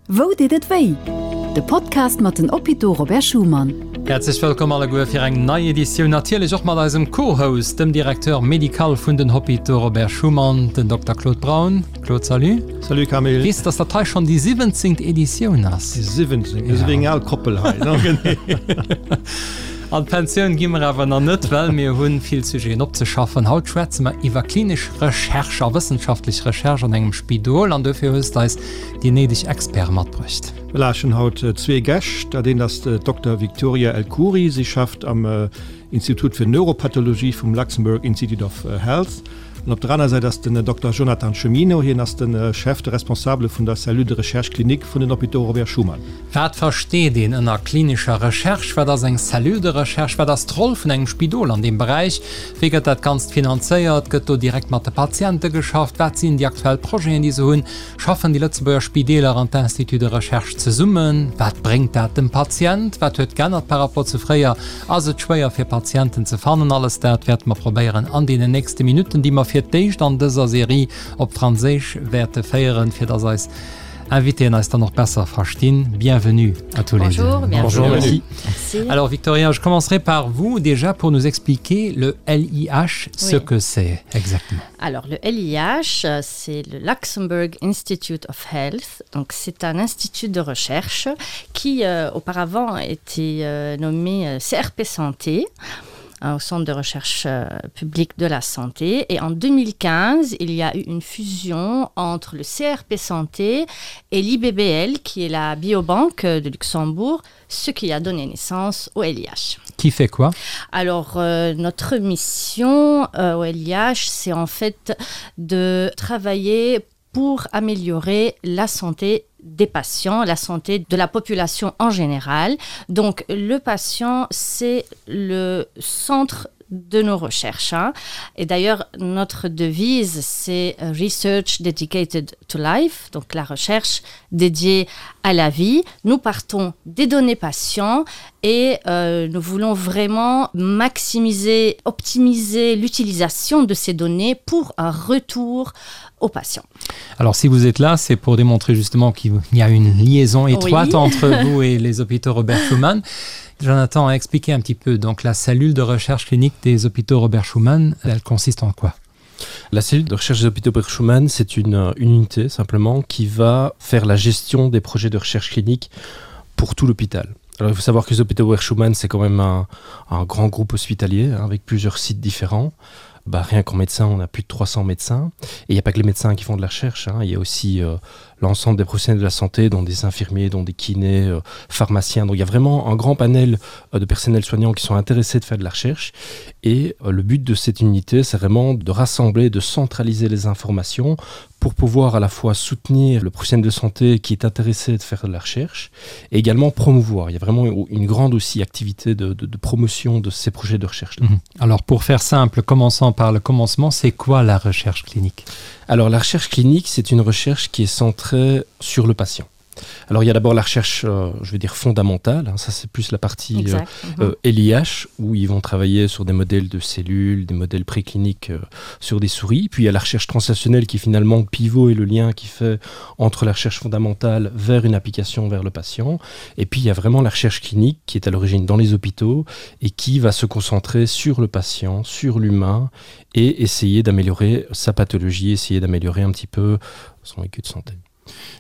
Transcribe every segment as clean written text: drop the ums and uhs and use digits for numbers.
Wou deet et wéi? De Podcast mat den Hôpitaux Robert Schuman. Häerzlech wëllkomm alleguer fir eng nei Editioun, natierlech och mat eisem Co-Host, dem Directeur médical vun den Hôpitaux Robert Schuman, den Dokter Claude Braun. Claude, salut. Salut Camille. Weess de, dass dat hei schonn déi siwwenzéngt Editioun ass? Déi siwwenzéngt, mir si wéi eng al Koppel hei, ne? Genee. An d'Pensioun gi mer awer nach net, well mir hu vill Sujeten opzeschaffen. Haut schwätze mer iwwer klinesch Recherche a wëssenschaftlech Recherche an engem Spidol an dofir hues de eis déi néideg Experte matbruecht. Voilà, ech hunn haut zwee Gäscht. Dat eent ass d'Dokter Victoria El Khoury. Si schafft am Institut fir Neuropathologie vum Luxembourg Institute of Health. An op der aner Säit ass den Dokter Jonathan Chemino. Hien ass de Chef, de Responsabele vun der Cellule de recherche clinique vun den Hôpitaux Robert Schuman. Wat versteet een ënner klinescher Recherche? Wat ass eng Cellule de recherche? Wat ass d'Roll vun engem Spidol an deem Beräich? Wéi gëtt dat Ganzt finanzéiert? Gëtt do direkt mat de Patiente geschafft? Wat sinn déi aktuell Projeten, déi se hunn? Schaffen déi Lëtzebuerger Spideeler an d'Instituts de recherche zesummen? Wat bréngt dat dem Patient? Wat huet geännert par rapport zu fréier? Ass et schwéier fir Patienten ze fannen? Alles dat wäerte mer probéieren an deenen nächste Minutten, déi mer fir d'éischt an dëser Serie op Franséisch wäerte féieren, fir dass eis Invitéen eis dann och besser verstinn. Bienvenue à tous les deux. Bonjour, Bonjour, merci. merci. Alors Victoria, je commencerai par vous déjà pour nous expliquer le LIH, ce oui. que c'est exactement. Alors le LIH, c'est le Luxembourg Institute of Health. Donc c'est un institut de recherche qui euh, auparavant était euh, nommé euh, CRP Santé au centre de recherche euh, publique de la santé. Et en 2015, il y a eu une fusion entre le CRP Santé et l'IBBL, qui est la biobanque de Luxembourg, ce qui a donné naissance au LIH. Qui fait quoi Alors euh, notre mission euh, au LIH, c'est en fait de travailler pour améliorer la santé des patients, la santé de la population en général. Donc le patient, c'est le centre de nos recherches. Hein. Et d'ailleurs, notre devise, c'est Research Dedicated to Life, donc la recherche dédiée à la vie. Nous partons des données patients et euh, nous voulons vraiment maximiser, optimiser l'utilisation de ces données pour un retour aux patients. Alors si vous êtes là, c'est pour démontrer justement qu'il y a une liaison étroite oui. entre vous et les hôpitaux Robert Schumann. Jonathan a expliqué un petit peu donc la cellule de recherche clinique des hôpitaux Robert Schumann, elle consiste en quoi? La cellule de recherche des hôpitaux Robert Schumann, c'est une, une unité simplement qui va faire la gestion des projets de recherche clinique pour tout l'hôpital. Alors il faut savoir que les hôpitaux Robert Schumann, c'est quand même un, un grand groupe hospitalier hein, avec plusieurs sites différents. Bah, rien qu'en médecin, on a plus de 300 médecins. Et il n'y a pas que les médecins qui font de la recherche, hein. il y a aussi euh, l'ensemble des professionnels de la santé, dont des infirmiers, dont des kinés, euh, pharmaciens. Donc il y a vraiment un grand panel euh, de personnels soignants qui sont intéressés de faire de la recherche. Et euh, le but de cette unité, c'est vraiment de rassembler, de centraliser les informations pour pouvoir à la fois soutenir le professionnel de santé qui est intéressé de faire de la recherche et également promouvoir. Il y a vraiment une grande aussi activité de, de, de promotion de ces projets de recherche. Mmh. Alors pour faire simple, commençons par le commencement, c'est quoi la recherche clinique Alors la recherche clinique, c'est une recherche qui est centrée sur le patient. Alors il y a d'abord la recherche euh, je veux dire fondamentale hein, ça c'est plus la partie euh, euh, LIH où ils vont travailler sur des modèles de cellules, des modèles précliniques euh, sur des souris. Puis il y a la recherche translationnelle qui est finalement le pivot et le lien qui fait entre la recherche fondamentale vers une application vers le patient. Et puis il y a vraiment la recherche clinique qui est à l'origine dans les hôpitaux et qui va se concentrer sur le patient, sur l'humain et essayer d'améliorer sa pathologie, essayer d'améliorer un petit peu son vécu de santé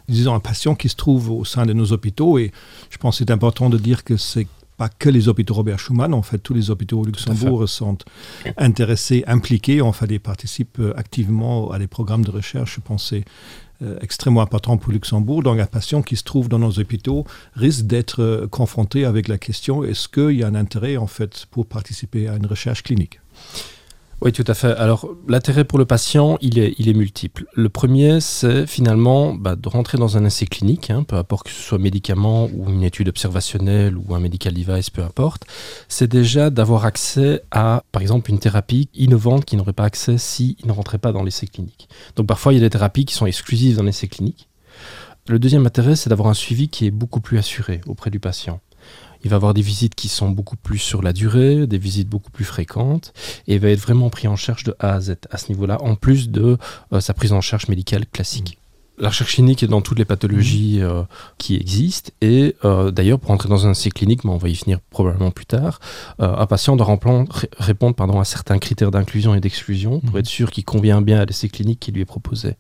disons un patient qui se trouve au sein de nos hôpitaux et je pense c'est important de dire que c'est pas que les hôpitaux Robert Schumann en fait tous les hôpitaux au Luxembourg sont intéressés impliqués en fait et participent euh, activement à des programmes de recherche je pensais euh, extrêmement important pour Luxembourg donc un patient qui se trouve dans nos hôpitaux risque d'être euh, confronté avec la question est-ce qu'il y a un intérêt en fait pour participer à une recherche clinique Oui, tout à fait. Alors l'intérêt pour le patient, il est, il est multiple. Le premier, c'est finalement bah, de rentrer dans un essai clinique, hein, peu importe que ce soit médicament ou une étude observationnelle ou un medical device, peu importe. C'est déjà d'avoir accès à, par exemple, une thérapie innovante qui n'aurait pas accès s'il ne rentrait pas dans l'essai clinique. Donc parfois, il y a des thérapies qui sont exclusives dans l'essai clinique. Le deuxième intérêt, c'est d'avoir un suivi qui est beaucoup plus assuré auprès du patient il va avoir des visites qui sont beaucoup plus sur la durée, des visites beaucoup plus fréquentes et va être vraiment pris en charge de A à Z à ce niveau-là, en plus de euh, sa prise en charge médicale classique. Mmh. La recherche clinique est dans toutes les pathologies mmh. euh, qui existent et euh, d'ailleurs pour entrer dans un essai clinique mais on va y finir probablement plus tard euh, un patient doit répondre pardon à certains critères d'inclusion et d'exclusion pour mmh. être sûr qu'il convient bien à l'essai clinique qui lui est proposé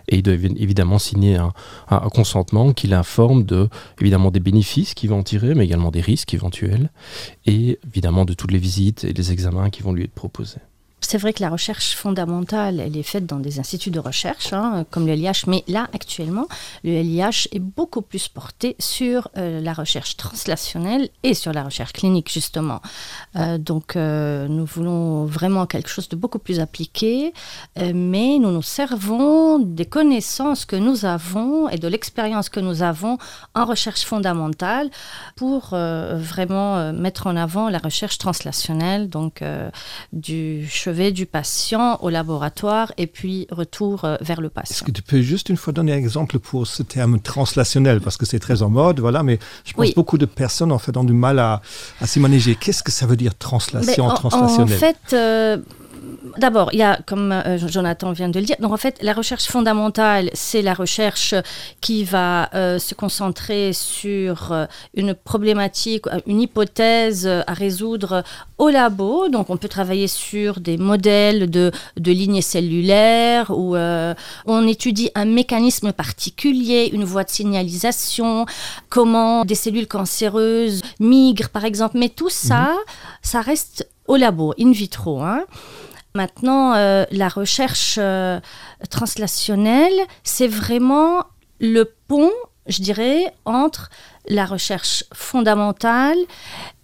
et il doit évidemment signer un, un, un consentement qui l'informe de évidemment des bénéfices qui vont en tirer mais également des risques éventuels et évidemment de toutes les visites et les examens qui vont lui être proposés. C'est vrai que la recherche fondamentale, elle est faite dans des instituts de recherche hein, comme le LIH, mais là actuellement, le LIH est beaucoup plus porté sur euh, la recherche translationnelle et sur la recherche clinique justement. Euh, donc euh, nous voulons vraiment quelque chose de beaucoup plus appliqué, euh, mais nous nous servons des connaissances que nous avons et de l'expérience que nous avons en recherche fondamentale pour euh, vraiment euh, mettre en avant la recherche translationnelle donc euh, du chevet du patient au laboratoire et puis retour euh, vers le patient. Est-ce que tu peux juste une fois donner un exemple pour ce terme translationnel parce que c'est très en mode voilà mais je pense oui. beaucoup de personnes en fait ont du mal à, à s'y manager. Qu'est-ce que ça veut dire translation en, translationnel En fait euh, D'abord, il y a, comme euh, Jonathan vient de le dire, donc en fait, la recherche fondamentale, c'est la recherche qui va euh, se concentrer sur euh, une problématique, euh, une hypothèse euh, à résoudre au labo. Donc, on peut travailler sur des modèles de, de lignées cellulaires où euh, on étudie un mécanisme particulier, une voie de signalisation, comment des cellules cancéreuses migrent, par exemple. Mais tout ça, mmh. ça reste au labo, in vitro. Hein. Maintenant, euh, la recherche euh, translationnelle, c'est vraiment le pont, je dirais, entre la recherche fondamentale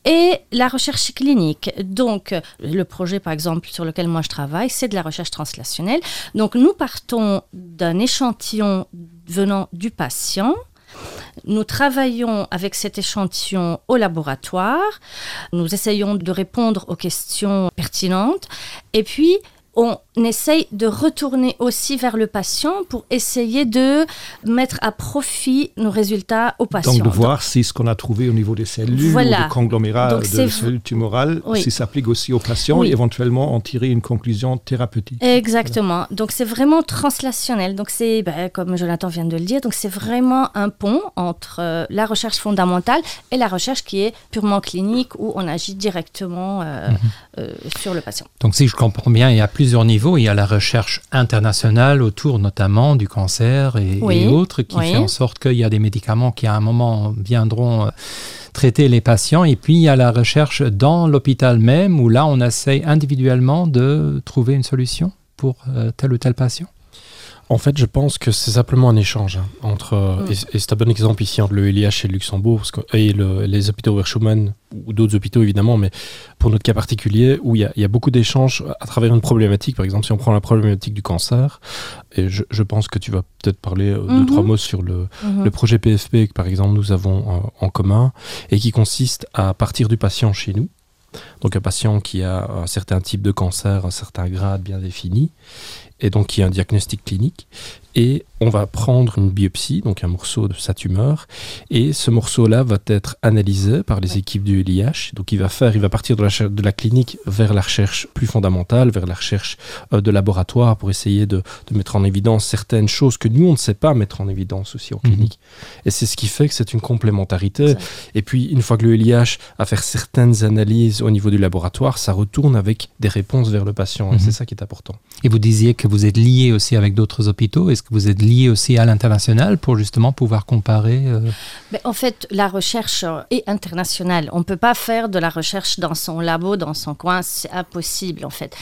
et la recherche clinique. Donc, le projet, par exemple, sur lequel moi je travaille, c'est de la recherche translationnelle. Donc, nous partons d'un échantillon venant du patient. Nous travaillons avec cet échantillon au laboratoire. Nous essayons de répondre aux questions pertinentes. Et puis, on essaye de retourner aussi vers le patient pour essayer de mettre à profit nos résultats au patient. Donc de voir si ce qu'on a trouvé au niveau des cellules voilà. ou des conglomérats Donc, de cellules tumorales oui. si s'applique aussi au patient oui. et éventuellement en tirer une conclusion thérapeutique. Exactement. Voilà. Donc c'est vraiment translationnel. Donc c'est ben, comme Jonathan vient de le dire, donc c'est vraiment un pont entre euh, la recherche fondamentale et la recherche qui est purement clinique où on agit directement euh, mm -hmm. euh, sur le patient. Donc si je comprends bien, il y a plusieurs niveaux. Il y a la recherche internationale autour notamment du cancer et, oui. et autres qui oui. fait en sorte qu'il y a des médicaments qui à un moment viendront euh, traiter les patients. Et puis il y a la recherche dans l'hôpital même où là on essaye individuellement de trouver une solution pour euh, tel ou tel patient. En fait, je pense que c'est simplement un échange hein, entre euh, mm. et, et c'est un bon exemple ici entre le LIH et le Luxembourg parce que, et le, les hôpitaux Schumann ou d'autres hôpitaux évidemment, mais pour notre cas particulier où il y a, il y a beaucoup d'échanges à travers une problématique. Par exemple, si on prend la problématique du cancer, et je, je pense que tu vas peut-être parler mm -hmm. deux trois mots sur le, mm -hmm. le projet PFP que par exemple nous avons en, euh, en commun et qui consiste à partir du patient chez nous. Donc un patient qui a un certain type de cancer, un certain grade bien défini et donc qui a un diagnostic clinique et on va prendre une biopsie, donc un morceau de sa tumeur et ce morceau là va être analysé par les ouais. équipes du LIH donc il va faire il va partir de la, de la clinique vers la recherche plus fondamentale vers la recherche euh, de laboratoire pour essayer de, de mettre en évidence certaines choses que nous on ne sait pas mettre en évidence aussi en mmh. clinique et c'est ce qui fait que c'est une complémentarité et puis une fois que le LIH a fait certaines analyses au niveau du laboratoire ça retourne avec des réponses vers le patient mmh. c'est ça qui est important et vous disiez que vous êtes lié aussi avec d'autres hôpitaux est-ce que vous êtes lié aussi à l'international pour justement pouvoir comparer euh... Mais en fait la recherche est internationale on ne peut pas faire de la recherche dans son labo dans son coin c'est impossible en fait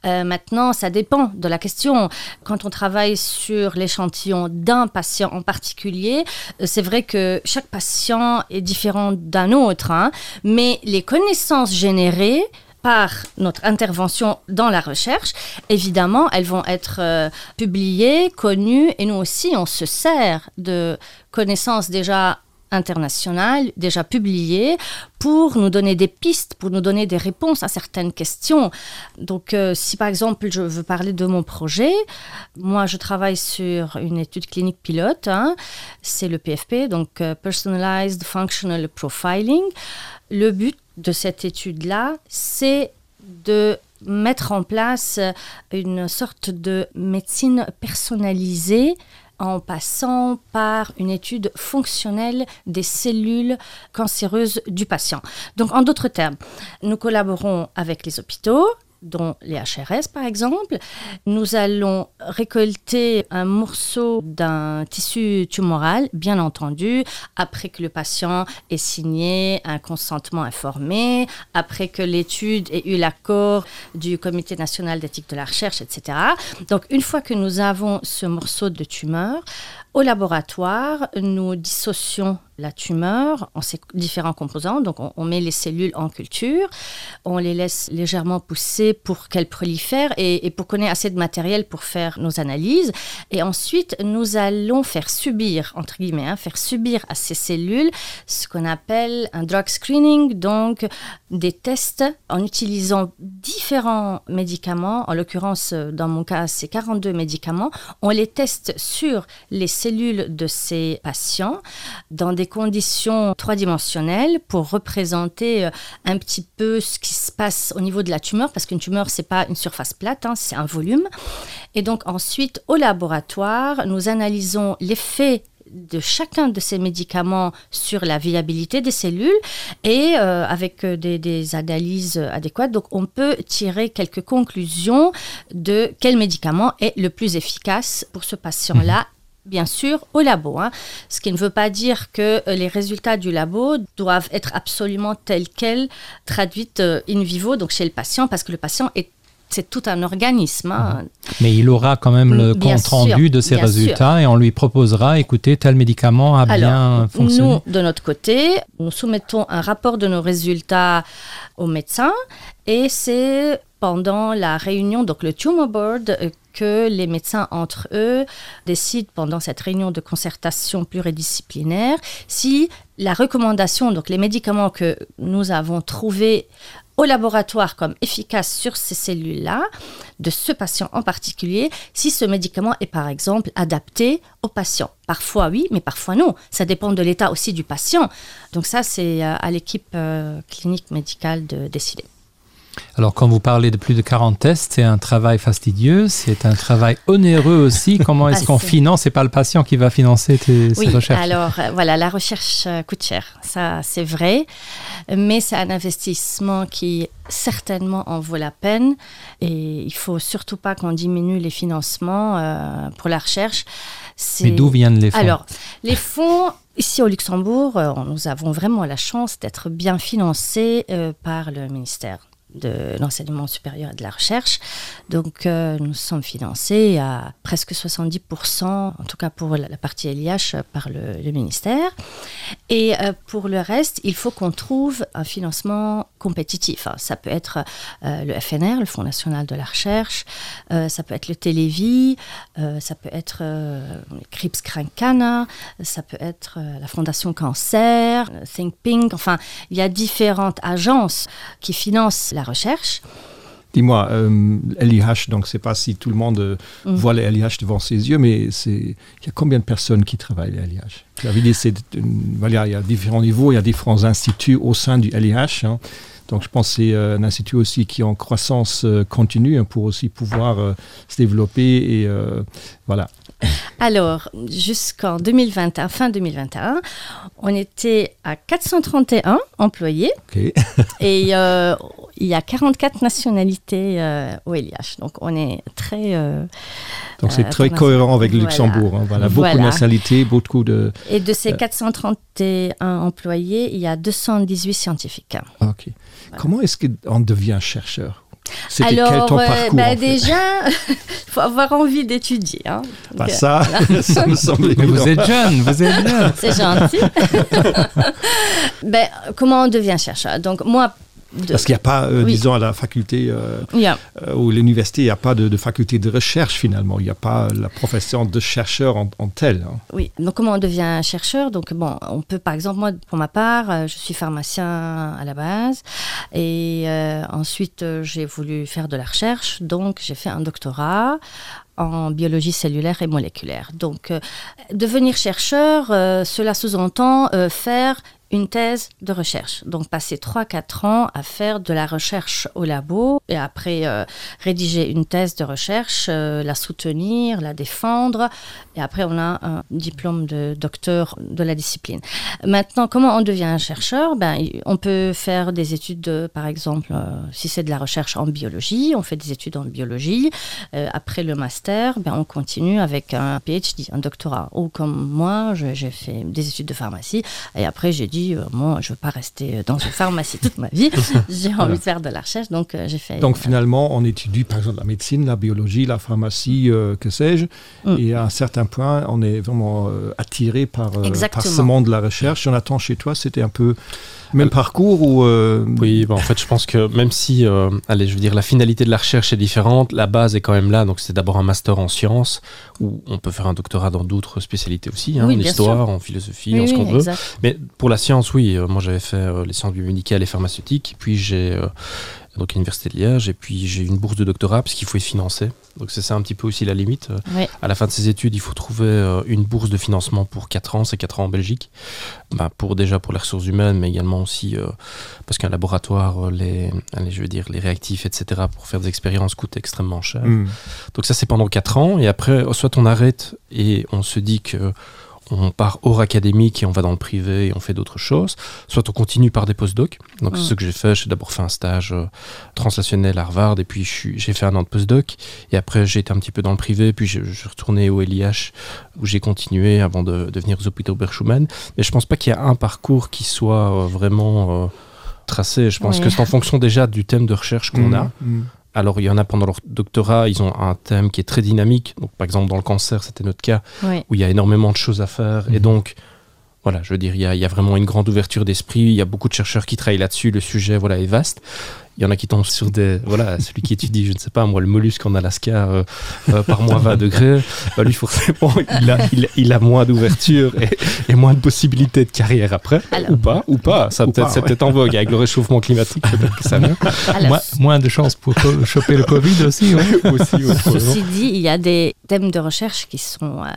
euh, maintenant ça dépend de la question quand on travaille sur l'échantillon d'un patient en particulier euh, c'est vrai que chaque patient est différent d'un autre hein, mais les connaissances générées par notre intervention dans la recherche, évidemment, elles vont être euh, publiées, connues, et nous aussi, on se sert de connaissances déjà internationales, déjà publiées, pour nous donner des pistes, pour nous donner des réponses à certaines questions. Donc, euh, si par exemple, je veux parler de mon projet, moi, je travaille sur une étude clinique pilote, c'est le PFP, donc euh, Personalized Functional Profiling. Le but de cette étude-là, c'est de mettre en place une sorte de médecine personnalisée. en passant par une étude fonctionnelle des cellules cancéreuses du patient. Donc en d'autres termes, nous collaborons avec les hôpitaux, dont les HRS par exemple. Nous allons récolter un morceau d'un tissu tumoral, bien entendu, après que le patient ait signé un consentement informé, après que l'étude ait eu l'accord du Comité national d'éthique de la recherche, etc. Donc une fois que nous avons ce morceau de tumeur, au laboratoire, nous dissocions la tumeur en ses différents composants. Donc on, on met les cellules en culture, on les laisse légèrement pousser pour qu'elles prolifèrent et, et pour qu'on ait assez de matériel pour faire nos analyses. Et ensuite, nous allons faire subir, entre guillemets, hein, faire subir à ces cellules ce qu'on appelle un drug screening, donc des tests en utilisant différents médicaments. En l'occurrence, dans mon cas, c'est 42 médicaments. On les teste sur les cellules de ces patients dans des conditions trois-dimensionnelles pour représenter euh, un petit peu ce qui se passe au niveau de la tumeur parce qu'une tumeur c'est pas une surface plate c'est un volume et donc ensuite au laboratoire nous analysons l'effet de chacun de ces médicaments sur la viabilité des cellules et euh, avec euh, des, des analyses adéquates donc on peut tirer quelques conclusions de quel médicament est le plus efficace pour ce patient là mmh bien sûr au labo hein. ce qui ne veut pas dire que euh, les résultats du labo doivent être absolument tels quels traduites euh, in vivo donc chez le patient parce que le patient est c'est tout un organisme hein. Mhm. mais il aura quand même le bien compte sûr, rendu de ses résultats sûr. et on lui proposera écoutez tel médicament a Alors, bien fonctionné nous de notre côté nous soumettons un rapport de nos résultats au médecin et c'est pendant la réunion donc le tumor board euh, que les médecins entre eux décident pendant cette réunion de concertation pluridisciplinaire si la recommandation donc les médicaments que nous avons trouvés au laboratoire comme efficace sur ces cellules là de ce patient en particulier si ce médicament est par exemple adapté au patient parfois oui mais parfois non ça dépend de l'état aussi du patient donc ça c'est euh, à l'équipe euh, clinique médicale de décider Alors quand vous parlez de plus de 40 tests, c'est un travail fastidieux, c'est un travail onéreux aussi. Comment est-ce ah, qu'on finance et pas le patient qui va financer tes, oui, ces recherches Alors euh, voilà, la recherche euh, coûte cher, ça c'est vrai, mais c'est un investissement qui certainement en vaut la peine et il faut surtout pas qu'on diminue les financements euh, pour la recherche. Mais d'où viennent les fonds Alors les fonds Ici au Luxembourg, euh, nous avons vraiment la chance d'être bien financés euh, par le ministère de l'enseignement supérieur et de la recherche. Donc euh, nous sommes financés à presque 70%, en tout cas pour la, la partie LIH par le, le ministère. Et euh, pour le reste, il faut qu'on trouve un financement compétitif. Ça peut être euh, le FNR, le Fonds national de la recherche, euh, ça peut être le Télévis, euh, ça peut être euh, Crips Crancana, ça peut être euh, la Fondation Cancer, Think Pink, enfin il y a différentes agences qui financent la recherche. Dis-moi euh, LIH donc c'est pas si tout le monde euh, mm. voit les LIH devant ses yeux mais c'est il y a combien de personnes qui travaillent les LIH Tu avais dit c'est voilà, il y a différents niveaux, il y a différents instituts au sein du LIH hein. Donc je pense c'est euh, un institut aussi qui est en croissance euh, continue hein, pour aussi pouvoir euh, se développer et euh, voilà. Alors jusqu'en 2021 fin 2021 on était à 431 employés okay. et euh, il y a 44 nationalités euh, au LIH donc on est très euh, donc c'est euh, très cohérent avec le Luxembourg voilà. voilà beaucoup voilà. de nationalités beaucoup de et de ces 431 euh, employés il y a 218 scientifiques okay. voilà. comment est-ce qu'on devient chercheur Alors ton euh, parcours, bah, en fait déjà faut avoir envie d'étudier bah, euh, ça, ça me semble vous êtes jeune vous êtes jeune c'est gentil ben, comment on devient chercheur donc moi de... Parce qu'il n'y a pas, euh, oui. disons, à la faculté euh, yeah. euh, ou l'université, il n'y a pas de, de faculté de recherche finalement. Il n'y a pas la profession de chercheur en, en tel. Hein. Oui, donc comment on devient chercheur Donc bon, on peut par exemple, moi pour ma part, euh, je suis pharmacien à la base et euh, ensuite euh, j'ai voulu faire de la recherche, donc j'ai fait un doctorat en biologie cellulaire et moléculaire. Donc euh, devenir chercheur, euh, cela sous-entend euh, faire une thèse de recherche. Donc passer 3-4 ans à faire de la recherche au labo et après euh, rédiger une thèse de recherche, euh, la soutenir, la défendre et après on a un diplôme de docteur de la discipline. Maintenant, comment on devient un chercheur ben, On peut faire des études, de, par exemple, euh, si c'est de la recherche en biologie, on fait des études en biologie. Euh, après le master, ben, on continue avec un PhD, un doctorat. Ou comme moi, j'ai fait des études de pharmacie et après j'ai dit euh, moi je veux pas rester dans une pharmacie toute ma vie j'ai envie voilà. de faire de la recherche donc euh, j'ai fait donc euh, finalement on étudie par exemple la médecine la biologie la pharmacie euh, que sais-je mm. et à un certain point on est vraiment euh, attiré par, euh, par ce monde de la recherche Jonathan chez toi c'était un peu même parcours ou euh... oui ben, en fait je pense que même si euh, allez je veux dire la finalité de la recherche est différente la base est quand même là donc c'est d'abord un master en sciences où on peut faire un doctorat dans d'autres spécialités aussi hein, oui, en histoire sûr. en philosophie oui, en ce oui, qu'on veut mais pour la science oui euh, moi j'avais fait euh, les sciences biomédicales et pharmaceutiques puis j'ai euh, donc l'université de Liège et puis j'ai une bourse de doctorat parce qu'il faut y financer donc c'est ça un petit peu aussi la limite oui. à la fin de ses études il faut trouver euh, une bourse de financement pour quatre ans c'est quatre ans en Belgique bah, pour déjà pour les ressources humaines mais également aussi euh, parce qu'un laboratoire euh, les allez, je veux dire les réactifs etc pour faire des expériences coûte extrêmement cher mmh. donc ça c'est pendant quatre ans et après soit on arrête et on se dit que on part hors académique et on va dans le privé et on fait d'autres choses soit on continue par des postdocs donc mmh. ce que j'ai fait j'ai d'abord fait un stage euh, translationnel à Harvard et puis j'ai fait un an de postdoc et après j'ai été un petit peu dans le privé puis je, je retourné au LIH où j'ai continué avant de devenir aux hôpitaux Berchumann mais je pense pas qu'il y a un parcours qui soit euh, vraiment euh, tracé je pense oui. que c'est en fonction déjà du thème de recherche qu'on mmh. a mmh. Alors il y en a pendant leur doctorat, ils ont un thème qui est très dynamique. Donc, par exemple dans le cancer, c'était notre cas oui. où il y a énormément de choses à faire mmh. et donc voilà, je veux dire il y a, il y a vraiment une grande ouverture d'esprit, il y a beaucoup de chercheurs qui travaillent là-dessus, le sujet voilà est vaste il y en a qui tombent sur des voilà celui qui étudie je ne sais pas moi le mollusque en Alaska euh, euh, par moins 20 degrés bah, lui forcément il a, il, il a moins d'ouverture et, et moins de possibilités de carrière après Alors, ou pas ou pas ça peut-être c'est ouais. peut-être en vogue avec le réchauffement climatique que ça vient Alors, moins, moins de chances pour choper le covid aussi, ouais. aussi, aussi ceci dit il y a des thèmes de recherche qui sont euh,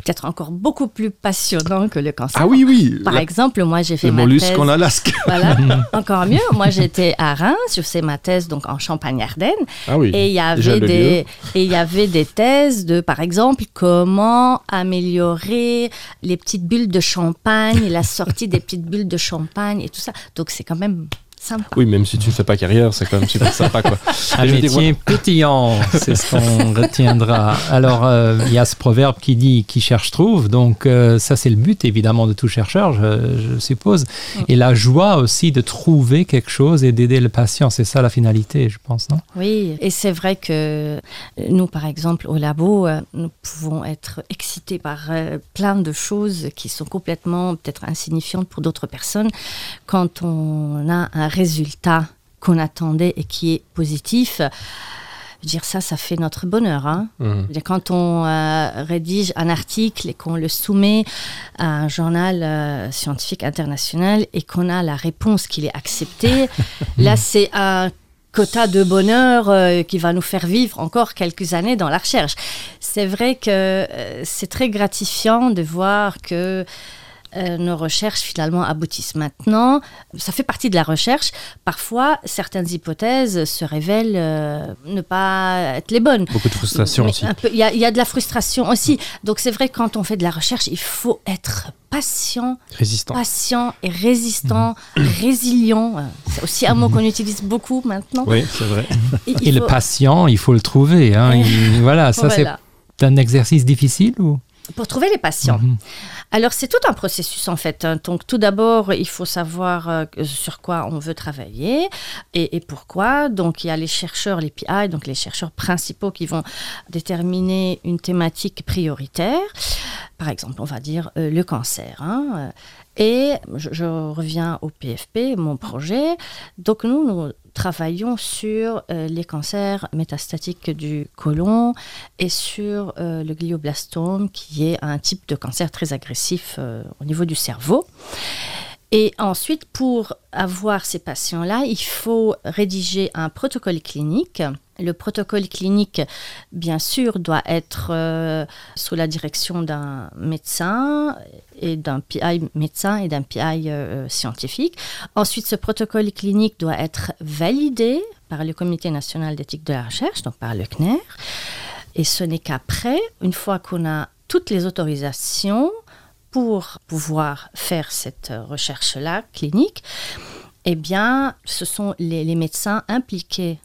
peut-être encore beaucoup plus passionnant que le cancer. Ah oui oui par la... exemple moi j'ai fait le mollusque en Alaska voilà, encore mieux moi j'étais à Reims je fais ma thèse donc en Champagne-Ardenne ah oui, et il y avait des et il y avait des thèses de par exemple comment améliorer les petites bulles de champagne la sortie des petites bulles de champagne et tout ça donc c'est quand même sympa. Oui, même si tu ne fais pas carrière, c'est quand même super sympa quoi. Un métier pétillant, c'est ce qu'on retiendra. Alors euh, il euh, y a ce proverbe qui dit qui cherche trouve, donc euh, ça c'est le but évidemment de tout chercheur, je, je suppose. Et la joie aussi de trouver quelque chose et d'aider le patient, c'est ça la finalité, je pense non Oui, et c'est vrai que nous par exemple au labo, euh, nous pouvons être excités par euh, plein de choses qui sont complètement peut-être insignifiantes pour d'autres personnes quand on a un résultat qu'on attendait et qui est positif dire ça ça fait notre bonheur hein. mmh. quand on euh, rédige un article et qu'on le soumet à un journal euh, scientifique international et qu'on a la réponse qu'il est accepté là c'est un quota de bonheur euh, qui va nous faire vivre encore quelques années dans la recherche c'est vrai que euh, c'est très gratifiant de voir que euh, Euh, nos recherches finalement aboutissent maintenant ça fait partie de la recherche parfois certaines hypothèses se révèlent euh, ne pas être les bonnes beaucoup de frustration aussi il y, y a de la frustration aussi donc c'est vrai quand on fait de la recherche il faut être patient résistant patient et résistant mmh. résilient c'est aussi un mot qu'on utilise beaucoup maintenant oui c'est vrai et, et faut... le patient il faut le trouver hein, il, voilà ça voilà. c'est un exercice difficile ou pour trouver les patients mmh. Alors c'est tout un processus en fait. Donc tout d'abord, il faut savoir euh, sur quoi on veut travailler et, et pourquoi. Donc il y a les chercheurs, les PI, donc les chercheurs principaux qui vont déterminer une thématique prioritaire. Par exemple, on va dire euh, le cancer. Hein. Et je, je reviens au PFP, mon projet. Donc nous, nous travaillons sur euh, les cancers métastatiques du côlon et sur euh, le glioblastome qui est un type de cancer très agressif euh, au niveau du cerveau. Et ensuite, pour avoir ces patients-là, il faut rédiger un protocole clinique. Le protocole clinique, bien sûr, doit être euh, sous la direction d'un médecin et d'un PI médecin et d'un PI euh, scientifique. Ensuite, ce protocole clinique doit être validé par le Comité national d'éthique de la recherche, donc par le CNER. Et ce n'est qu'après, une fois qu'on a toutes les autorisations pour pouvoir faire cette recherche-là clinique, eh bien, ce sont les, les médecins impliqués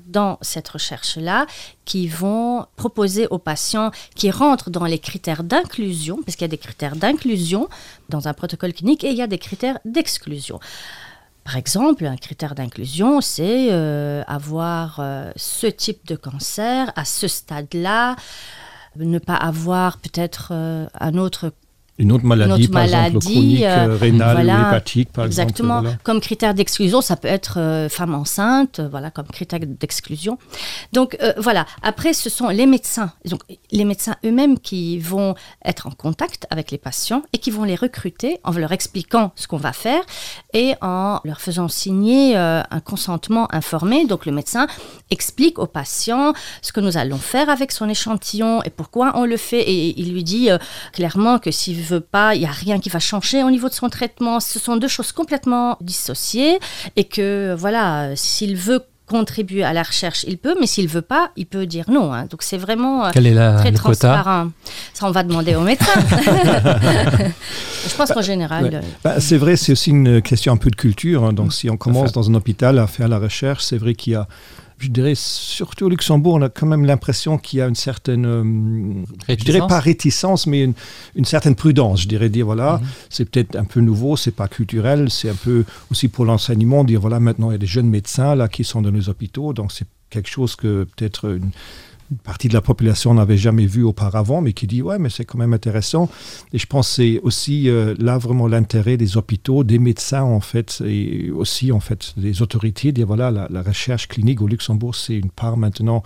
dans cette recherche-là qui vont proposer aux patients qui rentrent dans les critères d'inclusion, parce qu'il y a des critères d'inclusion dans un protocole clinique et il y a des critères d'exclusion. Par exemple, un critère d'inclusion, c'est euh, avoir euh, ce type de cancer à ce stade-là, ne pas avoir peut-être euh, un autre une autre maladie, une autre par maladie exemple, chronique euh, euh, rénale voilà, ou hépatique par exactement exemple, voilà. comme critère d'exclusion ça peut être euh, femme enceinte euh, voilà comme critère d'exclusion donc euh, voilà après ce sont les médecins donc les médecins eux-mêmes qui vont être en contact avec les patients et qui vont les recruter en leur expliquant ce qu'on va faire et en leur faisant signer euh, un consentement informé donc le médecin explique au patient ce que nous allons faire avec son échantillon et pourquoi on le fait et il lui dit euh, clairement que s'il veut pas il y a rien qui va changer au niveau de son traitement ce sont deux choses complètement dissociées et que voilà s'il veut contribuer à la recherche il peut mais s'il veut pas il peut dire non hein. donc c'est vraiment euh, Quel est la, très le transparent ça on va demander au médecin je pense qu'en général ouais. euh, bah, c'est vrai c'est aussi une question un peu de culture hein. donc si on commence dans un hôpital à faire la recherche c'est vrai qu'il y a je dirais surtout au Luxembourg on a quand même l'impression qu'il y a une certaine euh, je dirais pas réticence mais une, une certaine prudence je dirais dire voilà mm -hmm. c'est peut-être un peu nouveau c'est pas culturel c'est un peu aussi pour l'enseignement dire voilà maintenant il y a des jeunes médecins là qui sont dans nos hôpitaux donc c'est quelque chose que peut-être une une partie de la population n'avait jamais vu auparavant mais qui dit ouais mais c'est quand même intéressant et je pense c'est aussi euh, là vraiment l'intérêt des hôpitaux des médecins en fait et aussi en fait des autorités dire voilà la, la recherche clinique au Luxembourg c'est une part maintenant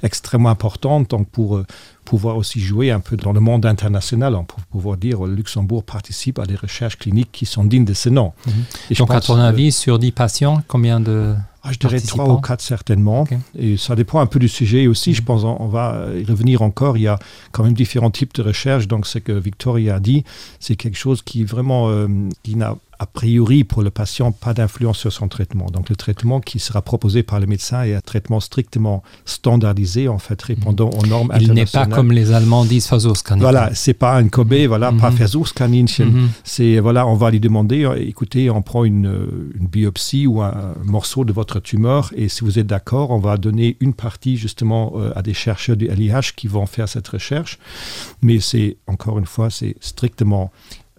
extrêmement importante donc pour euh, pouvoir aussi jouer un peu dans le monde international pour pouvoir dire le Luxembourg participe à des recherches cliniques qui sont dignes de ce nom mm -hmm. et donc à ton avis sur 10 patients combien de Ah, je dirais trois ou quatre certainement okay. et ça dépend un peu du sujet aussi mm -hmm. je pense on, on va y revenir encore il y a quand même différents types de recherches donc ce que Victoria a dit c'est quelque chose qui vraiment euh, qui n'a a priori pour le patient pas d'influence sur son traitement. Donc le traitement qui sera proposé par le médecin est un traitement strictement standardisé en fait répondant aux normes Il n'est pas comme les Allemands disent Versuchskaninchen. Voilà, c'est pas un Kobe, voilà, mm -hmm. pas mhm. Versuchskaninchen. Mm -hmm. C'est voilà, on va lui demander euh, écoutez, on prend une, euh, une biopsie ou un morceau de votre tumeur et si vous êtes d'accord, on va donner une partie justement euh, à des chercheurs du LIH qui vont faire cette recherche. Mais c'est encore une fois, c'est strictement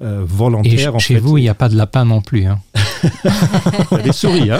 euh, volontaire. Et chez en fait. vous, il n'y a pas de lapin non plus. Hein. des souris hein.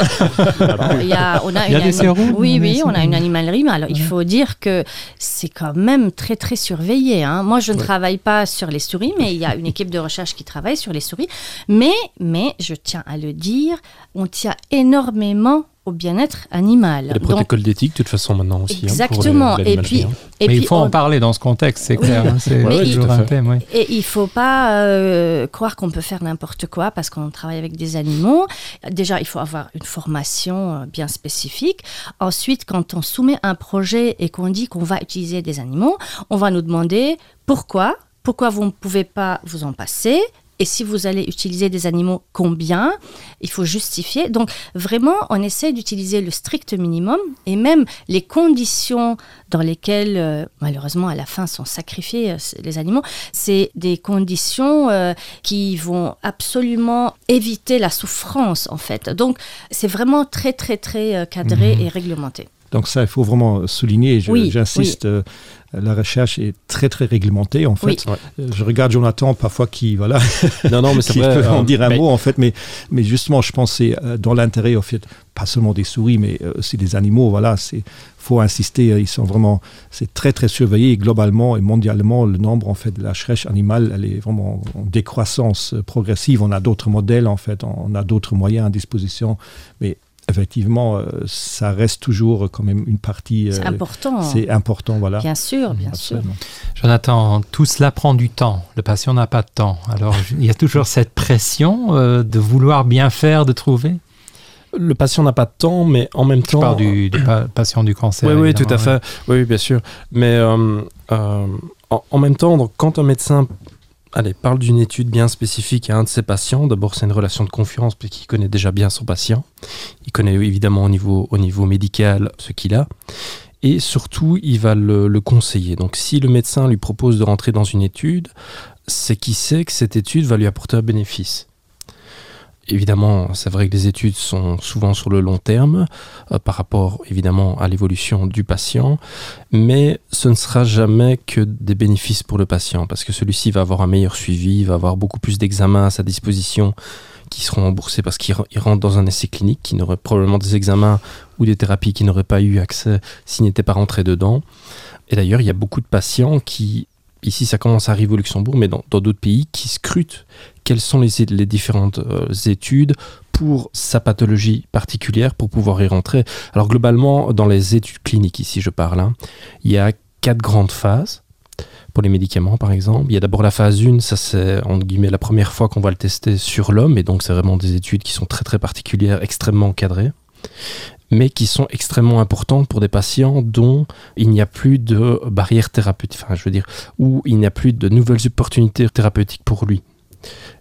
il y a, on a il y a une des souris, oui oui on a une animalerie mais alors ouais. il faut dire que c'est quand même très très surveillé hein. moi je ne ouais. travaille pas sur les souris mais il y a une équipe de recherche qui travaille sur les souris mais mais je tiens à le dire on tient énormément au bien-être animal. Les protocoles d'éthique de toute façon maintenant aussi exactement hein, pour les, et puis, et puis il faut on... en parler dans ce contexte c'est clair oui. oui. Ouais, il, un thème, oui. et il faut pas euh, croire qu'on peut faire n'importe quoi parce qu'on travaille avec des animaux déjà il faut avoir une formation euh, bien spécifique ensuite quand on soumet un projet et qu'on dit qu'on va utiliser des animaux on va nous demander pourquoi pourquoi vous ne pouvez pas vous en passer et si vous allez utiliser des animaux combien il faut justifier donc vraiment on essaie d'utiliser le strict minimum et même les conditions dans lesquelles euh, malheureusement à la fin sont sacrifiés euh, les animaux c'est des conditions euh, qui vont absolument éviter la souffrance en fait donc c'est vraiment très très très euh, cadré mmh. et réglementé donc ça il faut vraiment souligner j'insiste oui, oui. euh, la recherche est très très réglementée en fait oui. Euh, je regarde Jonathan parfois qui voilà non, non, mais qui vrai, peut en euh, dire un mais... mot en fait mais mais justement je pense c'est euh, dans l'intérêt au fait pas seulement des souris mais aussi des animaux voilà c'est faut insister ils sont vraiment c'est très très surveillé globalement et mondialement le nombre en fait de la recherche animale elle est vraiment en décroissance progressive on a d'autres modèles en fait on a d'autres moyens à disposition mais effectivement euh, ça reste toujours quand même une partie euh, important c'est important voilà bien sûr bien Absolument. sûr Jonathan tout cela prend du temps le patient n'a pas de temps alors il y a toujours cette pression euh, de vouloir bien faire de trouver. Le patient n'a pas de temps, mais en même Je temps parle du, du pa patient du cancer. Oui, oui, tout à fait. Oui, bien sûr. Mais euh, euh, en, en même temps, donc, quand un médecin allez, parle d'une étude bien spécifique à un de ses patients, d'abord c'est une relation de confiance puisqu'il connaît déjà bien son patient. Il connaît évidemment au niveau, au niveau médical ce qu'il a. Et surtout, il va le, le conseiller. Donc si le médecin lui propose de rentrer dans une étude, c'est qu'il sait que cette étude va lui apporter un bénéfice. Évidemment, c'est vrai que les études sont souvent sur le long terme euh, par rapport évidemment à l'évolution du patient, mais ce ne sera jamais que des bénéfices pour le patient parce que celui-ci va avoir un meilleur suivi, va avoir beaucoup plus d'examens à sa disposition qui seront remboursés parce qu'il rentre dans un essai clinique, qui n'aurait probablement des examens ou des thérapies qui n'auraient pas eu accès s'il n'était pas rentré dedans. Et d'ailleurs, il y a beaucoup de patients qui ici ça commence à arriver au Luxembourg, mais dans d'autres pays qui scrutent quelles sont les, les différentes euh, études pour sa pathologie particulière pour pouvoir y rentrer. Alors globalement, dans les études cliniques ici je parle, hein, il y a quatre grandes phases pour les médicaments par exemple. Il y a d'abord la phase 1, ça c'est entre guillemets la première fois qu'on va le tester sur l'homme et donc c'est vraiment des études qui sont très très particulières, extrêmement encadrées mais qui sont extrêmement importantes pour des patients dont il n'y a plus de barrières thérapeutiques, enfin je veux dire où il n'y a plus de nouvelles opportunités thérapeutiques pour lui.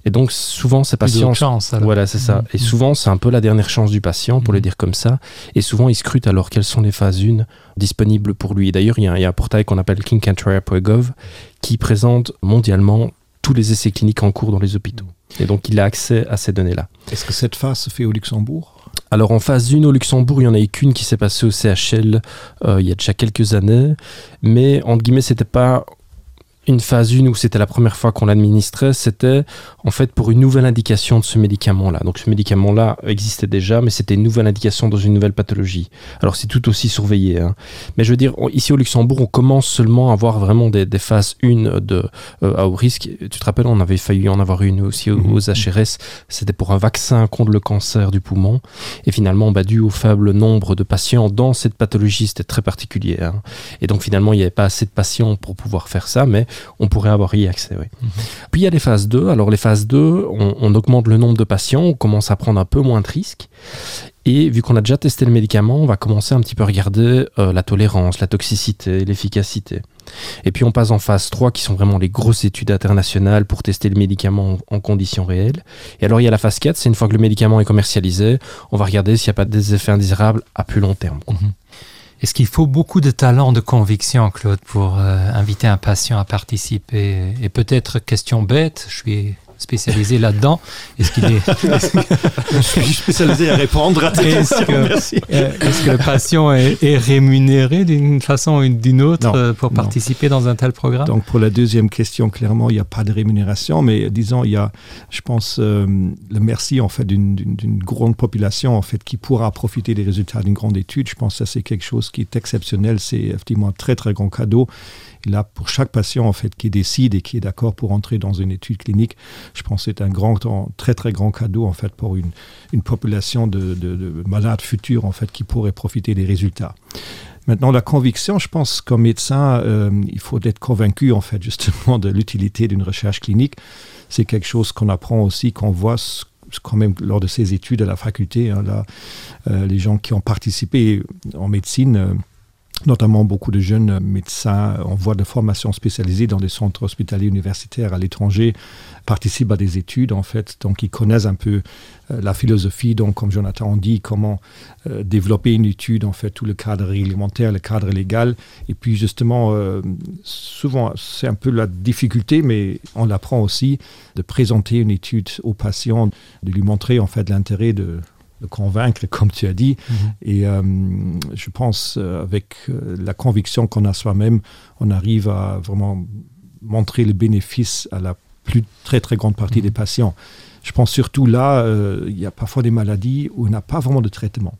Et donc souvent ces patients chance, voilà c'est ça mmh. et souvent c'est un peu la dernière chance du patient pour mmh. le dire comme ça et souvent il scrute alors quelles sont les phases 1 disponibles pour lui. D'ailleurs il y, y a un portail qu'on appelle kingcantrier.gov qui présente mondialement tous les essais cliniques en cours dans les hôpitaux. Et donc il a accès à ces données là. Est-ce que cette phase se fait au Luxembourg? Alors en phase 1 au Luxembourg, il y en a eu qu'une qui s'est passée au CHL euh, il y a déjà quelques années, mais entre guillemets c'était pas une phase 1 où c'était la première fois qu'on l'administrait, c'était en fait pour une nouvelle indication de ce médicament là. Donc ce médicament là existait déjà, mais c'était une nouvelle indication dans une nouvelle pathologie. Alors c'est tout aussi surveillé. Hein. Mais je veux dire on, ici au Luxembourg, on commence seulement à avoir vraiment des, des phases 1 de euh, à haut risque. Tu te rappelles, on avait failli en avoir une aussi aux, aux HRS, c'était pour un vaccin contre le cancer du poumon. Et finalement bah, dû au faible nombre de patients dans cette pathologie, c'était très particulier. Hein. Et donc finalement il n'y avait pas assez de patients pour pouvoir faire ça, mais on pourrait avoir y accès. Oui. Mmh. Puis il y a les phases 2. Alors les phases 2, on, on augmente le nombre de patients, on commence à prendre un peu moins de risques. Et vu qu'on a déjà testé le médicament, on va commencer un petit peu à regarder euh, la tolérance, la toxicité, l'efficacité. Et puis on passe en phase 3 qui sont vraiment les grosses études internationales pour tester le médicament en, en conditions réelles. Et alors il y a la phase 4, c'est une fois que le médicament est commercialisé, on va regarder s'il n'y a pas des effets indésirables à plus long terme. Quoi. Mmh. Est-ce qu'il faut beaucoup de talent de conviction, Claude, pour euh, inviter un patient à participer et peut-être question bête, je suis spécialisé là-dedans. Est-ce qu'il est je suis spécialisé à répondre à est-ce que, euh, est-ce que le patient est, est rémunéré d'une façon ou d'une autre non, euh, pour participer non. dans un tel programme Donc pour la deuxième question, clairement, il n'y a pas de rémunération, mais disons il y a je pense euh, le merci en fait d'une grande population en fait qui pourra profiter des résultats d'une grande étude. Je pense que c'est quelque chose qui est exceptionnel, c'est effectivement un très très grand cadeau. Et là pour chaque patient en fait qui décide et qui est d'accord pour entrer dans une étude clinique, je pense c'est un grand très très grand cadeau en fait pour une, une population de, de, de malades futurs en fait qui pourrait profiter des résultats. Maintenant la conviction, je pense comme médecin, euh, il faut être convaincu en fait justement de l'utilité d'une recherche clinique. C'est quelque chose qu'on apprend aussi, qu'on voit ce quand même lors de ses études à la faculté hein, là euh, les gens qui ont participé en médecine euh, notamment beaucoup de jeunes médecins en voie de formation spécialisée dans des centres hospitaliers universitaires à l'étranger participent à des études en fait donc ils connaissent un peu euh, la philosophie donc comme Jonathan dit comment euh, développer une étude en fait tout le cadre réglementaire le cadre légal et puis justement euh, souvent c'est un peu la difficulté mais on l'apprend aussi de présenter une étude aux patients de lui montrer en fait l'intérêt de le convaincre comme tu as dit mm -hmm. et euh, je pense euh, avec euh, la conviction qu'on a soi-même on arrive à vraiment montrer le bénéfice à la plus très très grande partie mm -hmm. des patients je pense surtout là euh, il y a parfois des maladies où on n'a pas vraiment de traitement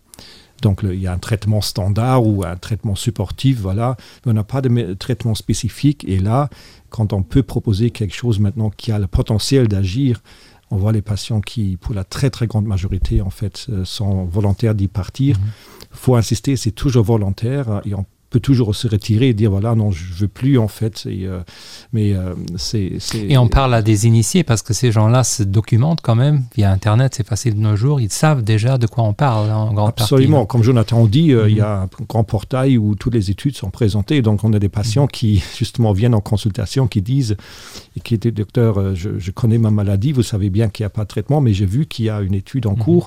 donc le, il y a un traitement standard ou un traitement supportif voilà mais on n'a pas de traitement spécifique et là quand on peut proposer quelque chose maintenant qui a le potentiel d'agir on voit les patients qui pour la très très grande majorité en fait euh, sont volontaires d'y partir mm -hmm. faut insister c'est toujours volontaire et on peut toujours se retirer et dire voilà non je veux plus en fait et, euh, mais euh, c'est et on parle à des initiés parce que ces gens là se documentent quand même via internet c'est facile de nos jours ils savent déjà de quoi on parle en grande absolument partie. comme Jonathan dit euh, mm -hmm. il y a un grand portail où toutes les études sont présentées donc on a des patients mm -hmm. qui justement viennent en consultation qui disent et qui étaient docteur euh, je, je connais ma maladie vous savez bien qu'il n'y a pas de traitement mais j'ai vu qu'il y a une étude en mm -hmm. cours